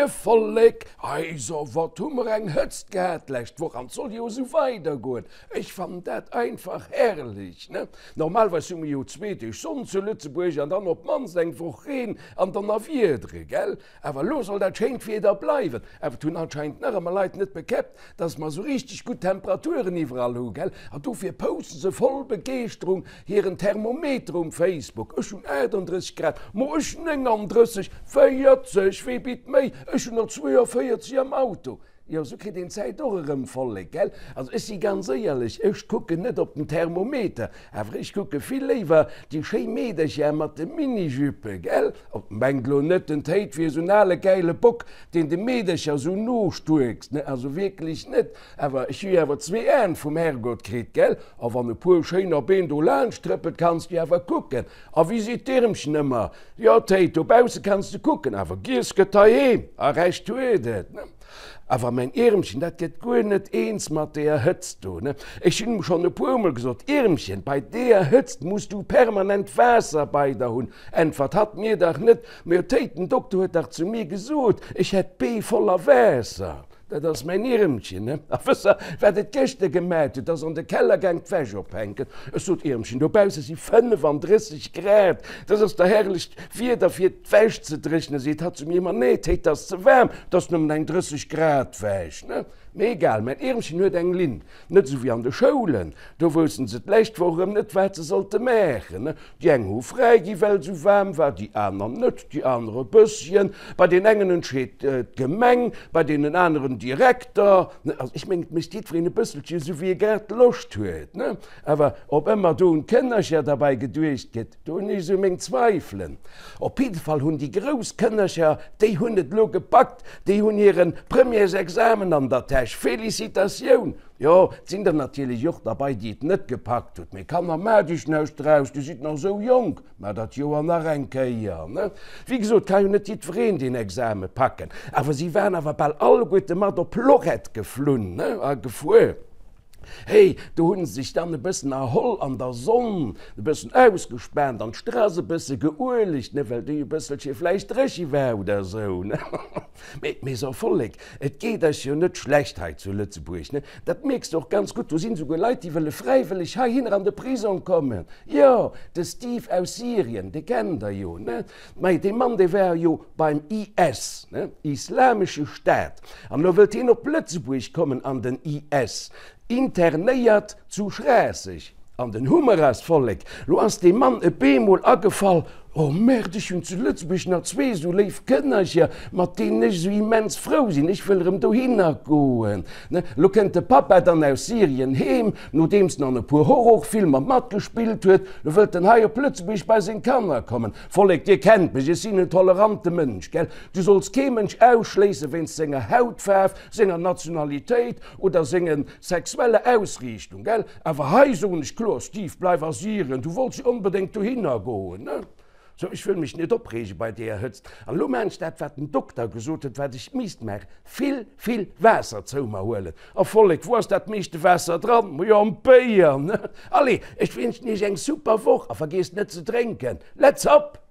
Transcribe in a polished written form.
Moie Vollek! Heiso, wat hu mer eng Hëtzt gehat d'lescht Woch an 't soll jo esou weidergoen. Ech fannen dat einfach herrlech, ne? Normalerweis hu mer jo zwee Deeg Sonn zu Lëtzebuerg an dann op d'mannst eng Woch Reen an Donnerwiedere, gell? Awer elo soll dat schéint Wieder bleiwen. Awer et hunn anscheinend nach ëmmer Leit net bekäppt, dass mer esou richteg gutt Temperaturen iwwerall hu, gell? An dofir posten se voll Begeeschterung hiren Thermometer um Facebook, Ech hunn 38 Grad, mo ech 39, 40, wee bitt méi, ech hunn der 42 am Auto. Jo, esou kritt een d'Zäit och erëm voll, gell? Also ech si ganz éierlech, ech kucken net op den Thermometer, awer ech kucke vill léiwer déi schéi Meedercher mat de Minijuppe, gell? Oh, mengt lo net, den Théid wier esou en ale gäile Bock, deen de Meedercher esou nostuerkst, ne? Also wierklech net, awer ech hu jo awer zwee Aen vum Herrgott kritt, gell? A wann e puer schéiner Been do laanscht trëppelt, kanns du awer kucken. A wéi seet d'Iermchen ëmmer, Jo, Théid, dobausse kanns de kucken, awer giess gëtt heiheem, a Recht huet et, ne? Awer mäin Iermchen, dat gëtt guer net eens mat deeër Hëtzt do, ne? Ech hunn em schonn e puermol gesot, Iermchen, bei deeër Hëtzt muss du permanent Waasser bei der hunn. Äntwert hatt mir dach net, Mä Théid, den Dokter huet dach zu mir gesot, ech hätt d'Bee voller Waasser. Dat ass mäin Iermchen, ne? A wësst Der, wat et gëschter gemat huet? Ass an de Keller gaang d'Wäsch ophänken. Ech sot, Iermchen, dobausse si 35 Grad, dat ass der herrlecht Wieder fir d'Wäsch ze dréchnen. Seet hatt zu mir, Ma nee, Théid, 't ass ze waarm, 't ass nëmmen eng 30 Grad Wäsch, ne? Mee egal, mäin Iermchen huet eng Linn, net esou wéi an de Schoulen, do woussten se d'lescht Woch erëm net, wat se sollte maachen, ne? Déi eng hu fräi gi well et esou waarm war, déi aner net, déi aner e bësschen. Bei deenen engen entscheet d'Gemeng, bei deenen aneren Direkter, ne? Also ech mengen, et mécht jiddwereen e bësselche esou wéi e grad Loscht huet, ne? Awer ob ëmmer do un d'Kënnercher derbäi geduecht gëtt, Do hunn ech esou meng Zweifelen. Op jidde Fall hunn déi grouss Kënnercher, déi hunn et elo gepackt, déi hunn hire Premièresexamen an der Täsch. Felicitatioun! Jo, et sinn der natierlech och derbei, déi et net gepackt hutt. Mee Kanner, maacht iech näischt draus, dir sidd nach esou jonk, maacht dat Joer nach eng Kéier, ne? Wéi gesot, ka jo net jiddwereen deen Exame packen. Awer si waren awer bal alleguerte mat op Lorette geflunn, ne, a gefuer. Hey, do hunn se sech dann e bëssen erholl an der Sonn, e bëssen ausgespaant an d'Strass e bësse geuelegt, ne, well déi e bësselche vläicht dréche war oder esou, ne. Mee, mee so Vollek, et geet eis jo net schlecht hei zu Lëtzebuerg, ne. Dat mierks de och ganz gutt, do sinn esouguer Leit, déi wëlle fräiwëlleg heihinner an de Prisong kommen. Jo, de Steve aus Syrien, dee kennt der jo, ne. Mei, dee Mann, dee war jo beim IS, ne, Islamesche Staat, an elo wëllt hien op Lëtzebuerg kommen an den IS, internéiert zu Schraasseg. An den Hummer ass, Vollek, lo ass deem Mann e beemol agefall, Oh Merde, ech hunn zu Lëtzebuerg nach zwee esou léif Kënnercher, mat deenen ech esou immens frou sinn, ech wëll erëm dohinner goen. Ne, elo kënnt de Pappa dann aus Syrien heem, nodeems en an e puer Horrorfilmer matgespillt huet, lo wëllt en hei op Lëtzebuerg bei seng Kanner kommen. Vollek, dir kennt mech, ech sinn en tolerante Mënsch, gell? Du solls kee Mënsch ausschléisse wéinst senger Hautfaarf, senger Nationalitéit oder senge sexueller Ausriichtung, gell? Awer hei soen ech kloer, Steve, bleif a Syrien, du wollts jo onbedéngt dohinner goen, ne? Sou, ech wëll mech net opreege bei deeër Hëtzt. An elo maan ech dat, wat den Dokter gesot huet, wat ech misst maachen, vill, vill Waasser zou mer huelen. A Vollek, wou ass dat meeschte Waasser dran? Majo, am Béier, ne? Allez, ech wénschen iech eng super Woch a vergiesst net ze drénken. Let's up!